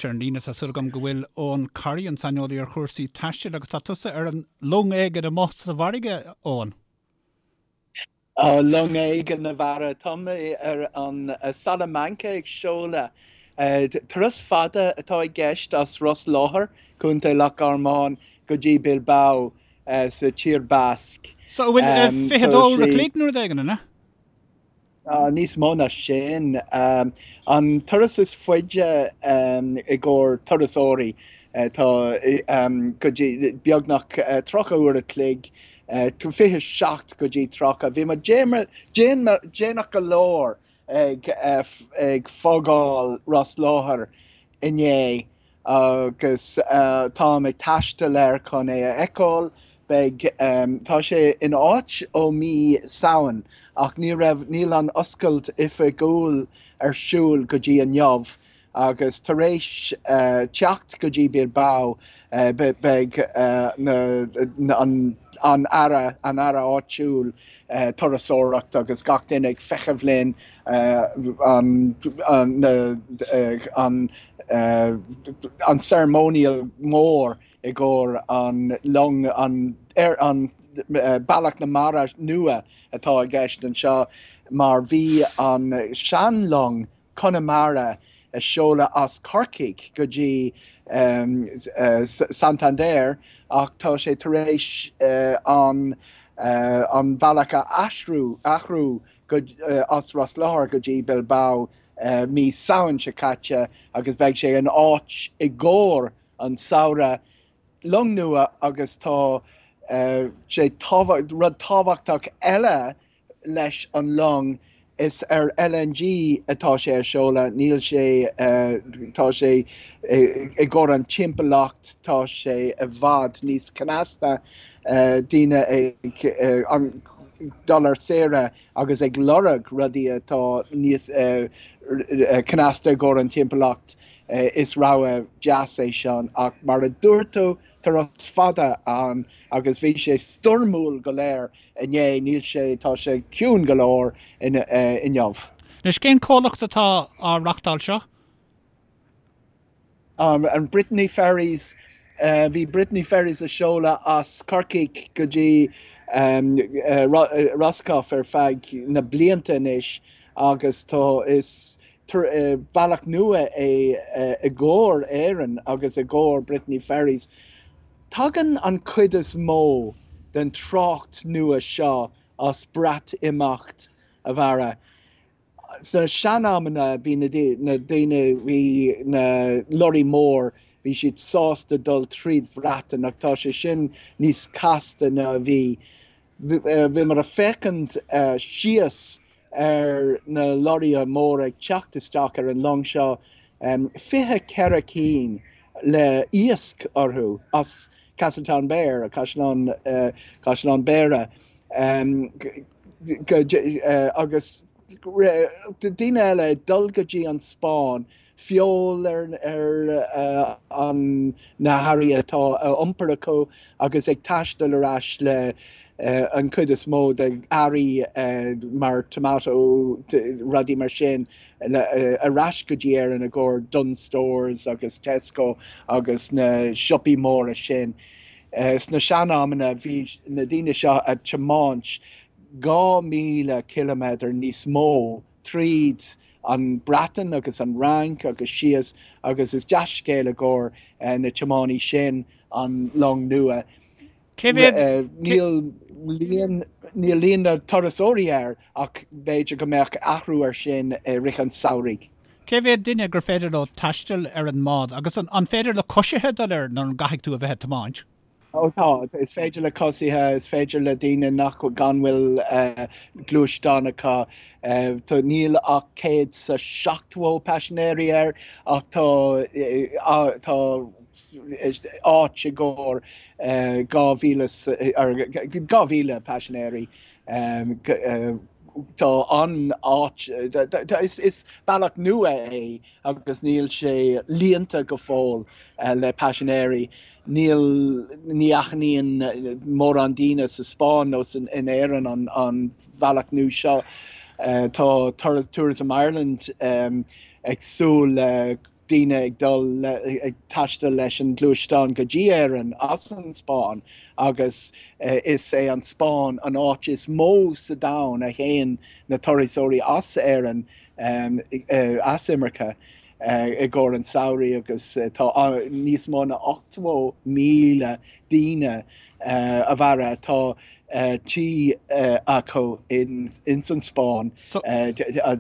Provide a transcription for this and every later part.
Ar an líne tá súil agam go bhfuil Eoin Corry, an saineolaí ar chúrsaí taistil, agus tá tusa ar an long éigin amuigh sa bhfarraige, Eoin. Long éigin, a Bharra. Tá mé ar an Salamanca ag seoladh. Turas fada atá i gceist as Ros Láir, Contae Loch Garman, go dtí Bilbao sa Tír Basque. So an bhfuil 22 uair a chloig nó rud éigin, an ea? Níos mó ná sin. An turas is faide i gcomhair turasóirí, tá go dtí beagnach 30 uair a chloig, 27 go dtí 30. Bhí muid déanach go leor ag fágáil Ros Láir inné agus táim ag taisteal air chun é a fheiceáil. Beidh, tá sé in áit ó mí Samhain ach ní raibh, níl an oscailt oifigiúil ar siúl go dtí inniu agus tar éis teacht go dtí Bilbao beidh na, an, an aire, an aire áitiúil turasóireacht agus gach duine ag feitheamh linn an, an, an, an ceremonial mór i gcomhair an long, an, ar an bealach na mara nua atá i gceist anseo mar bhí an sean-long Connemara a seoladh as Corcaigh go dtí Santander ach tá sé tar éis an an bealach a aistriú, athrú go, as Ros Láir go dtí Bilbao mí Samhain seo caite agus beidh sé in áit i gcomhair an samhradh. Long nua agus tá sé rud tábhachtach eile leis an long, is ar LNG atá sé a seoladh, níl sé, tá sé i gcomhair an timpeallacht, tá sé i bhfad níos cneasta, daoine ag dul ar saoire agus ag lorg rudaí atá níos cneasta i gcomhair an timpeallacht, is rogha deas é seo ach mar a dúirt tú, turas fada ann agus bhí sé stoirmiúil go léir inné, níl sé, tá sé ciúin go leor inniu. Anois, cén comhlacht atá á reachtáil seo? An Brittany Ferries, bhí Brittany Ferries a seoladh as Corcaigh go dtí Roscoff ar feadh na blianta anois agus tá, is bealach nua é i gcomhair Éireann agus i gcomhair Brittany Ferries. Tagann an chuid is mó den trácht nua seo as Breatimeacht, a Bharra. Sna sean-amanna bhí na daoine, bhí na lorraí mór, bhí siad sásta dul tríd Bhreatain ach tá sé sin níos casta ná a bhí. Bhíomar ag féachaint síos ar na lorraithe móra ag teacht isteach ar an long seo, 24 cinn le iasc orthu as Castletownbere, Caisleán, Caisleán Béara, agus daoine eile ag dul go dtí an Spáinn feoil ar ar na hearraí atá á iompar acu agus ag taisteal ar ais le an chuid is mó de earraí mar tomato, rudaí mar sin ar ais go dtí Éirinn i gcomhair Dunnes Stores agus Tesco agus na siopaí móra sin. Sna sean-amanna bhí na daoine seo ag tiomáint 2,000 ciliméadar níos mó tríd an Breatain agus an Fhrainc agus síos agus is dea-scéal i gcomhair na tiománaí sin an long nua. Cé mhéad? Níl líon, níl líon na turasóirí air ach b'fhéidir go mbeadh athrú ar sin i rith an samhraidh. Cé mhéad duine gur féidir leo taisteal ar an mbád agus an féidir le coisithe dul air nó an gcaithfidh tú a bheith ag tiomáint? Ó tá, is féidir le coisithe, is féidir le daoine nach gan bhfuil gluaisteán acu. Tá, níl ach 170 paisinéirí air ach tá tá áit i gcomhair 2,000 2,000 paisinéirí. Tá an áit, is bealach nua é agus níl sé líonta go fóill le paisinéirí. Níl, ní aithníonn mórán daoine sa Spáinn nó in Éirinn an bhealach nua seo. Tá Tourism Ireland ag súil le. daoine ag dul ag taisteal leis an gluaisteán go dtí Éirinn as an Spáinn agus is é an Spáinn an áit is mó sa domhan a théann na turasóirí as Éirinn as imirce i gcomhair an samhraidh agus tá níos mó ná 80,000 daoine a mhaire tá tí acu ins an Spáinn,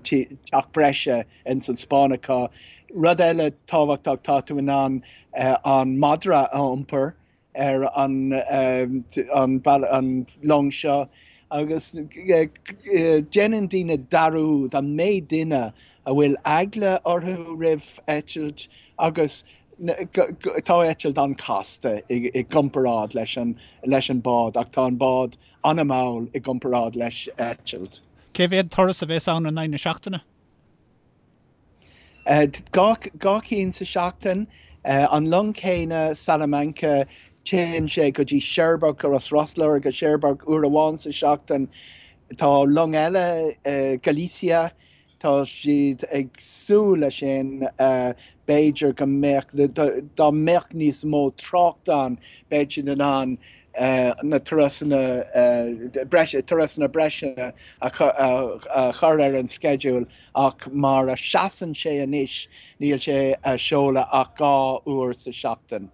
teach breise ins an Spáinn acu. Rud eile tábhachtach, tá tú in ann an madra a iompar ar an an long seo agus déanann daoine dearúd an méid duine a bhfuil eagla orthu roimh eitilt agus tá eitilt an-chasta i gcomparáid leis an leis an bád ach tá an bád an-mhall i gcomparáid leis eitilt. Cé mhéad turas a bheas ann in aghaidh na seachtaine? 2 cinn sa seachtain. An long céanna, Salamanca, téann sé go dtí Cherbourg, as Ros Láir go Cherbourg uair amháin sa seachtain. Tá long eile, Galicia, tá siad ag súil leis sin, b'fhéidir go mbeadh, dá mbeadh níos mó trácht ann, beidh siad in ann na turasanna breise, turasanna breise a chur ar an sceideal ach mar a seasann sé anois níl sé a seoladh ach 2 uair sa seachtain.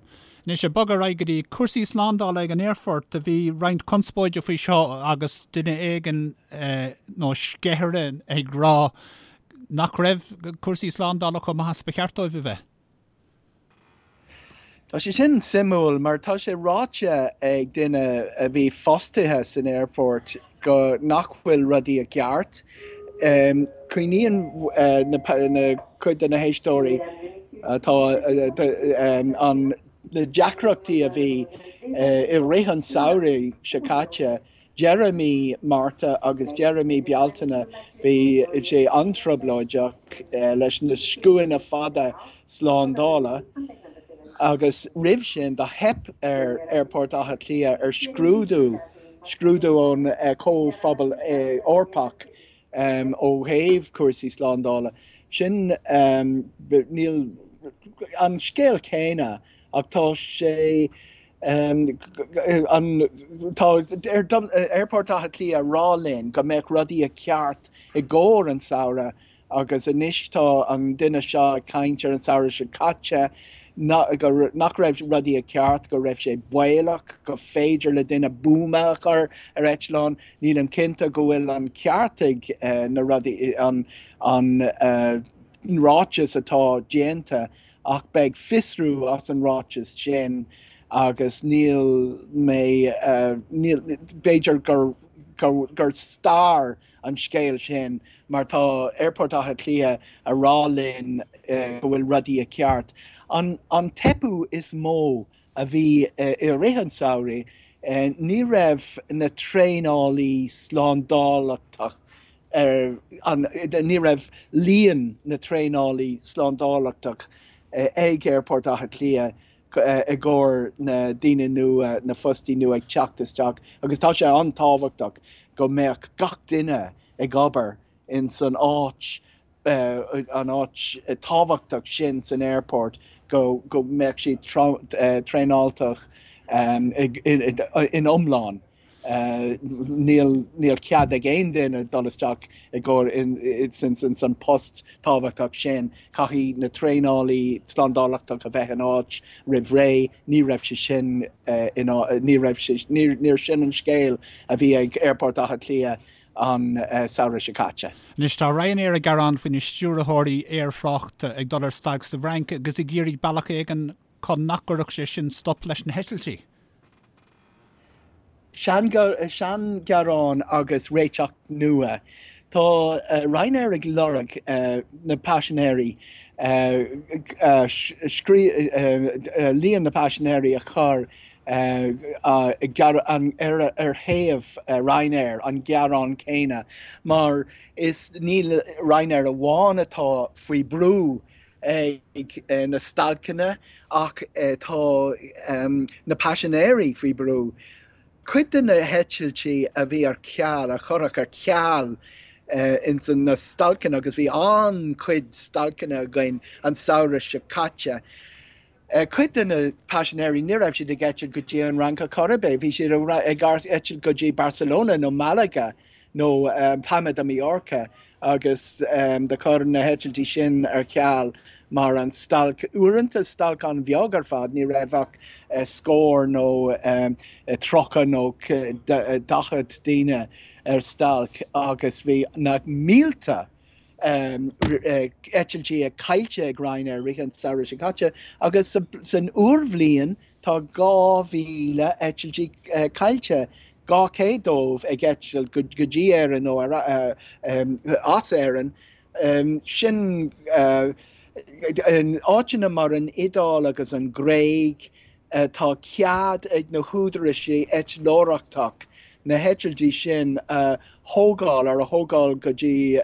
Anois ag bogadh ar aghaidh go dtí cúrsaí slándála ag an aerfort, bhí roinnt conspóide faoi seo agus duine éigin nó sceithire ag rá nach raibh cúrsaí slándála chomh maith is ba cheart dóibh a bheith. Tá sé sin suimiúil mar tá sé ráite ag duine a bhí fostaithe san aerfort go nach bhfuil rudaí i gceart. Cuimhníonn na cuid de na héisteoirí atá an na deacrachtaí a bhí i rith an samhraidh seo caite Deireadh mí Márta agus deireadh mí Bealtaine bhí sé an-trioblóideach leis na scuainí fada slándála agus roimh sin do theip ar Aerfort Átha Cliath ar scrúdú, scrúdú ón Chomhphobal Eorpach ó thaobh cúrsaí slándála. Sin, níl an scéal céanna ach tá sé An tá Aerfort Átha Cliath a rá linn go mbeadh rudaí i ceart i gcomhair an samhradh agus anois tá an duine seo ag caint ar an samhradh seo caite nach raibh rudaí i ceart, go raibh sé baolach, go féidir le duine buama a chur ar eitleán. Nílim cinnte go bhfuil an ceart ag na rudaí, an ráiteas atá déanta Ach beidh fiosrú as an ráiteas sin agus níl mé, níl, b'fhéidir gur, gur stair an scéal sin mar tá Aerfort Átha Cliath a rá linn go bhfuil rudaí i ceart. An, an teipeadh is mó a bhí i rith an samhraidh, ní raibh na traenálaí slándálachtach ar an, ní raibh líon na traenálaí slándálachtach ag Aerfort Átha Cliath i gcomhair na daoine nua, na fostaí nua ag teacht isteach agus tá sé an-tábhachtach go mbeadh gach duine ag obair in san áit, an áit tábhachtach sin san aerfort go go mbeadh siad traenáltach in iomlán. Níl níl cead ag aon duine dul isteach i gcomhair ins an post tábhachtach sin. Caithfidh na traenálaí slándálachtach a bheith in áit roimh ré. Ní raibh sé sin in ní raibh sé níor sin an scéal a bhí ag Aerfort Átha Cliath an samhradh seo caite. Anois tá Ryanair ag gearán faoi na stiúrthóirí aerthráchta ag dul ar stailc sa bhFrainc agus ag iarraidh bealach éigin chun nach gcuirfeadh sé sin stop leis na heitiltí. Seanghearán agus réiteach nua. Tá Ryanair ag lorg na paisinéirí, líon na paisinéirí a chur ar thaobh Ryanair, an gearán céanna, mar is níl Ryanair amháin atá faoi brú ag na stailceanna ach tá na paisinéirí faoi brú. Cuid de na heitiltí a bhí ar ceal, a cuireadh ar ceal. ins na stailceanna agus bhí an-chuid stailceanna againn an samhradh seo caite. Cuid de na paisinéirí ní raibh siad ag eitilt go dtí an Fhrainc ar chor ar bith, bhí siad ag eitilt go dtí Barcelona nó Malaga nó Palma de Mallorca agus do chuir na heitiltí sin ar ceal mar an stailc, uaireanta stailc an-bheag ar fad, ní raibh ach scór nó 30 nó 40 daoine ar stailc agus bhí na mílte eitiltí caillte ag Ryanair i rith an samhradh seo caite agus san úrbhliain tá 2,000 eitiltí caillte, 200 dóibh ag eitilt go dtí Éirinn nó as Éirinn. Sin in áiteanna mar an Iodáil agus an Ghréig, Tá cead ag na húdaráis eitleoireachtach na heitiltí sin a thógáil, ar a thógáil go dtí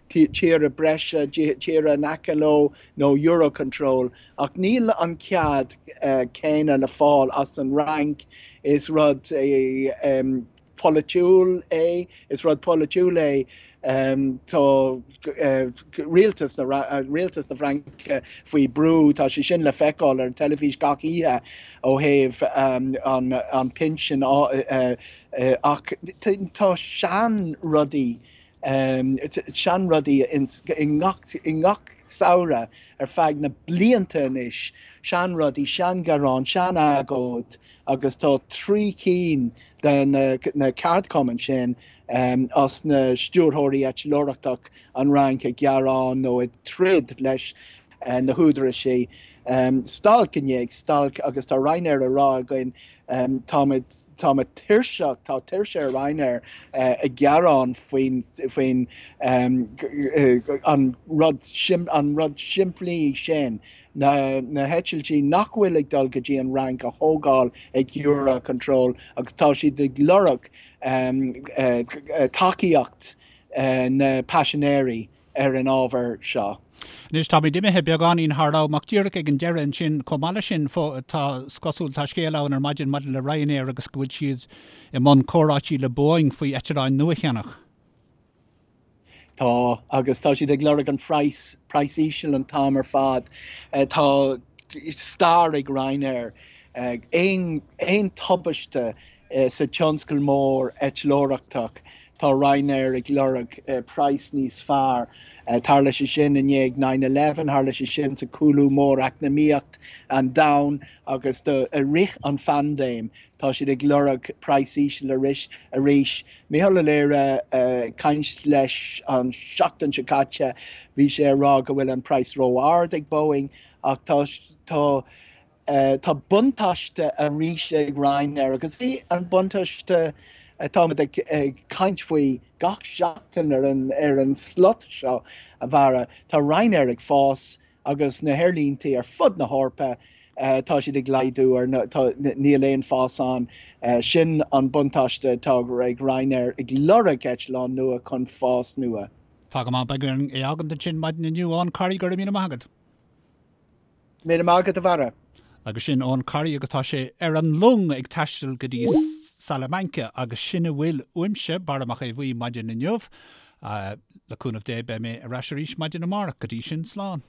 tíortha breise, tíortha in aice leo nó Eurocontrol, ach níl an cead céanna le fáil as an Fhrainc. Is rud é. polaitiúil é, is rud polaitiúil é, tá rialtas na rialtas na Fraince faoi brú, tá sé sin le feiceáil ar an teilifís gach oíche ó thaobh an an pinsean ach tá sean rudaí seanrudaí i ngach i ngach samhradh ar feadh na blianta anois, seanrudaí, seanghearáin, seanagóid agus tá 3 cinn de na ceardchumainn sin as na stiúrthóirí eitleoireachtach an Fhrainc ag gearán nó ag troid leis na húdaráis. Stailc i ndiaidh stailc agus tá Ryanair a rá againn táimid táimid tuirseach, tá tuirse ar Ryanair ag gearán faoin faoin an rud an rud simplí sin na na heitiltí nach bhfuil ag dul go dtí an Fhrainc a thógáil ag Eurocontrol agus tá siad ag lorg tacaíocht na paisinéirí ar an ábhar seo. Anois, táimid imithe beagáinín thar am, ach díreach ag an deireadh ansin, chomh maith leis sin, tá, is cosúil, tá scéal ann ar maidin maidir le Ryanair agus go bhfuil siad i mbun comhráití le Boeing faoi eitleáin nua a cheannach. Tá, agus tá siad ag lorg an phraghas, praghas íseal an t-am ar fad. Tá stair ag Ryanair. Aon, aon tubaiste sa tionscal mór eitleoireachtach, tá Ryanair ag lorg praghas níos fearr. Tharla sé sin i ndiaidh nine eleven, tharla sé sin sa cúlú mór eacnamaíocht an domhain agus do, i rith an phaindéim. Tá siad ag lorg praghas íseal arís. Mícheál Ó Laoire ag caint leis an seachtain seo caite, bhí sé ag rá go bhfuil an praghas ró-ard ag Boeing ach tá tá tá buntáiste arís ag Ryanair agus é an buntáiste atáimid ag ag caint faoi gach seachtain ar an ar an slot seo a Bharra. Tá Ryanair ag fás agus na haerlíntí ar fud na hEorpa, tá siad ag laghdú ar na, tá, níl aon fás ann. Sin an buntáiste atá ag Ryanair ag lorg eitleán nua chun fás nua. Tá go maith, beidh orainn é a fhágaint ansin maidin inniu. Eoin Corry, go raibh míle maith agat. Míle maith agat a Bharra. Agus sin Eoin Corry agus tá sé ar an long ag taisteal go dtí Salamanca agus sin a bhfuil uaimse, Barra Mac Aodha Bhuí, maidin inniu. Le cúnamh Dé beidh mé ar ais arís maidin amárach. Go dtí sin, slán.